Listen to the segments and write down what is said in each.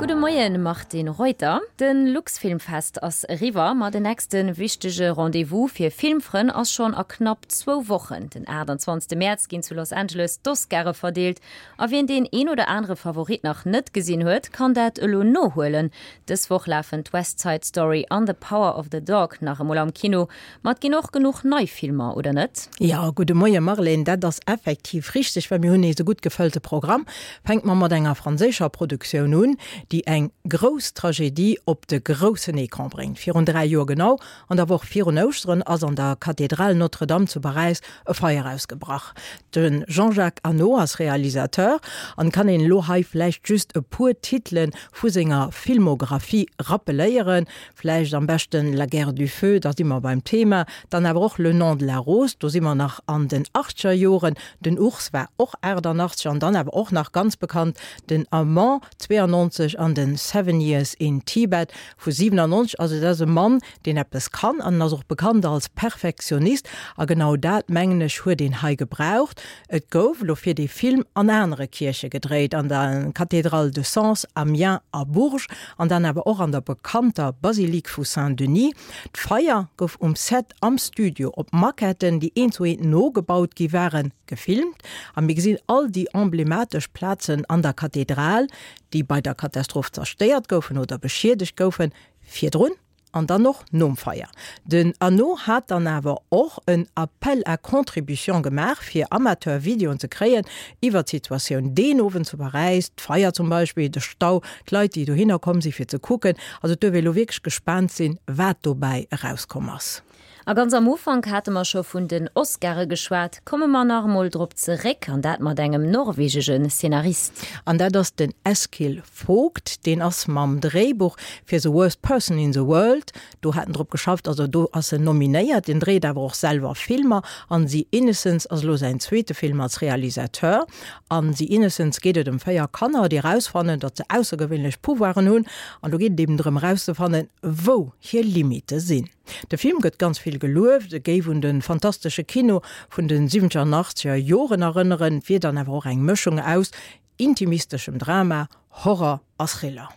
Gudde Moien Martine Reuter. De Luxfilmfest ass eriwwer, ma den nächste wichtege Rendez-vous fir Filmfrënn ass schonn a knapp zwou Wochen. Den 28 Mäerz ginn zu Los Angeles d'Oscare verdeelt a wien deen een oder anere Favorit nach net gesinn huet, kann dat elo nohuelen. Dës Woch lafen d'West Side Story an The Power of the Dog nach emol am Kino. Ma et ginn och genuch nei Filmer, oder net? Jo, gudde Moie Marlène, dat ass effektiv richteg, well mir hunn nees e gutt gefëllte Programm. Fänke mer mat enger franséischer Produktioun un, déi eng grouss Tragedie op de groussen Ecran bréngt. Virun 3 Joer genau, an der Woch virun Ouschteren, ass an der Kathedral Notre-Dame zu Paräis e Feier ausgebrach. De Jean-Jacques Annaud ass Realisateur an kann een elo hei vläicht just e puer Titele vu senger Filmographie rappeléieren, Vläicht am beschten La guerre du feu, da si mer beim Thema. Dann awer och Le nom de la rose, do si mer nach an den achtzeger Joren. Den Ours war och 88 an dann awer och nach ganz bekannt den Amant 92 an den Seven Years in Tibet vu 97. Also dat ass e Mann, deen eppes kann an en ass och bekannt als Perfektionist a genau dat, mengen ech, huet een hei gebraucht. Et gouf elo fir dee Film an anere Kierche gedréit, an der Cathédrale de Sens, Amiens a Bourges an dann awer och an der bekannter Basilique vu Saint-Denis. D'Feier gouf um Set am Studio op Maquetten, déi eent zu eent nogebaut gi waren, gefilmt a mir gesinn all déi emblematesch Plazen an der Kathedral, déi bei der Katastroph zerstéiert goufen oder beschiedegt goufen, virdrun An dann och nom Feier. Den Arnaud hat dann awer och en Appel à contribution gemaach, fir Amateur-Videoen ze kréien iwwer d'Situatioun deen Owend zu Paräis, d'Feier zum Beispill, de Stau, d'Leit, déi dohinner komm si fir ze kucken. Also et duerf ee lo wierklech gespaant sinn, wat dobäi erauskomm ass. A ganz am Ufank hate mer scho vun den Oscare geschwat. Komme mer nach emol drop zeréck, an dat mat engem norwegege Szenarist. An dat ass den Eskil Vogt. Deen ass mam Dréibuch fir The Worst Person in the World, do hat en drop geschafft, also do ass en nominéiert. Deen dréit awer och selwer Filmer an The Innocents ass elo säin zweete Film als Realisateur. An The Innocents geet et ëm 4 Kanner, déi erausfannen, datt se aussergewéinlech Pouvoiren hunn. An do geet et eben drëm erauszefannen, wou hir Limite sinn. De Film gëtt ganz vill gelueft, e géif un de fantastesche Kino vun de siwwenzeger an achtzeger Joren erënneren, wier dann awer och eng Mëschung aus intimisteschem Drama, Horror a Thriller.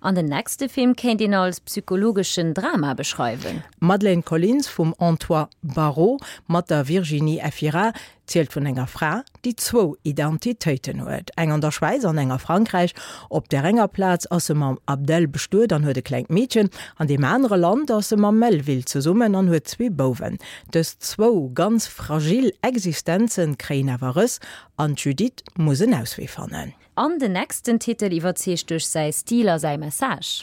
An den nächste Film kéint een als psychologeschen Drama beschreiwen. Madeleine Collins vum Antoine Barraud mat der Virginie Efira zielt vun enger Fra, déi zwou Identitéiten huet, eng an der Schwäiz an eng a Frankräich. Op där enger Plaz ass se mam Abdel bestuet an huet e klengt Meedchen, an deem anere Land ass se mam Melvil zesummen an huet zwee Bouwen. Dës zwou ganz fragil Existenze kréien awer Rëss an d'Judith muss en Auswee fannen. An den nächsten Titel iwwerzeegt duerch säi Stil a säi Message.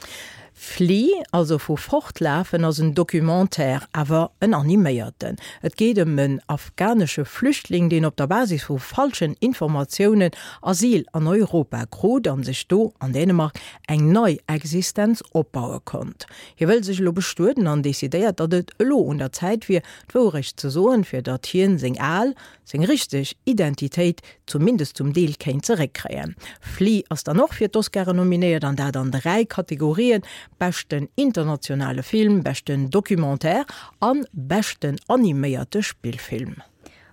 Flee, also vu fortlafen, ass en Documentaire, awer en animéierten. Et geet ëm en afghanesche Flüchtling, deen op der Basis vu falschen Informatiounen Asyl an Europa krut an sech do an Dänemark eng nei Existenz opbaue konnt. Hie wëll sech elo bestueden an decidéiert, datt et elo un der Zäit wier, d'Wourecht ze soen, fir datt hien seng al, seng richteg Identitéit zumindest zum Deel kéint zeréckkréien. Flee ass dann och fir d'Oscaren nominéiert, an dat an 3 Kategorien, beschten internationale Film, beschten Documentaire an beschten animéierte Spillfilm.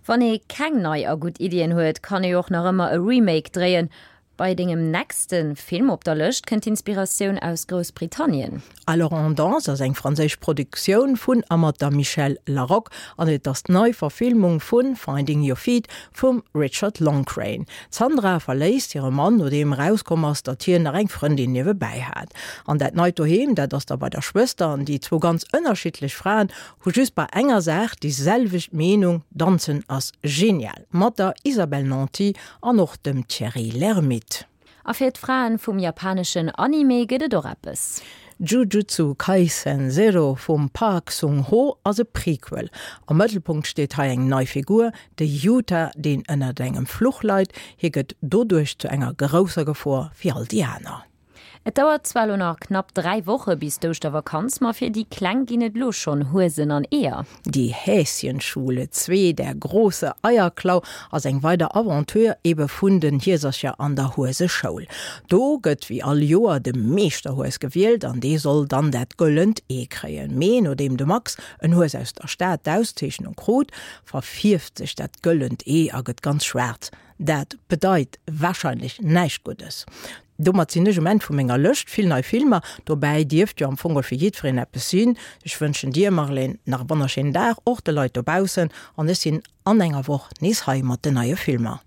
Wann ee keng nei a gutt Iddien huet, kann ee och nach ëmmer e Remake dréien. Bei dengem nächste Film op der Lëscht kënnt d'Inspiratioun aus Groussbritannien. Alors on danse ass eng franséisch Produktioun vun a mat der Michèle Larocque an et ass d'Neiverfilmung vu Finding Your Feet vum Richard Loncraine. D'Sandra verléisst hire Mann, nodeem erauskomm ass, datt hien nach eng Frëndin niewebäi hat. An dat neit Doheem, dat ass da bei der Schwëster an déi zwou ganz ënnerschiddlech Fraen hu just bei enger Saach déi selwecht Meenung, Danzen ass genial! Mat der Isabelle Nanty An och dem Thierry Lhermitte. A fir d'Fraen vum japaneschen Anime gëtt et och eppes. Jujutsu Kaisen Zero vum Park Sung-ho ass e Prequel. Am Mëttelpunkt steet hei eng nei Figur, de Yuta, deen ënnert engem Fluch leit. Hie gëtt doduerch zu enger grousser Gefor fir all déi aner. Et dauert zwar elo nach knapp 3 Woche bis d'Ouschtervakanz, ma fir déi Kleng ginn et elo schonn Huesen an Eeër. Die Häschenschule 2, Der große Eierklau ass eng weider Aventure ebe vun den Hiesercher an der Hueseschoul. Do gëtt wéi all Joer de Meeschterhues gewielt an dee soll dann dat gëllent Ee kréien. Mee nodeem de Max, en Hues aus der Stad, d'Auszeechnung krut, verfierft sech dat gëllent Ee a gëtt ganz schwaarz. Dat bedeit warscheinlech näischt Guddes. Domat sinn ech um Enn vu menger Lëscht. Vill nei Filmer dobäi, dierft jo am Fong och fir jiddwereen eppes sinn. Ech wënschen dir, Marlène, nach e wonnerschéinen Dag, och de Leit dobaussen, an ech sinn an enger Woch nees hei mat den neie Filmer.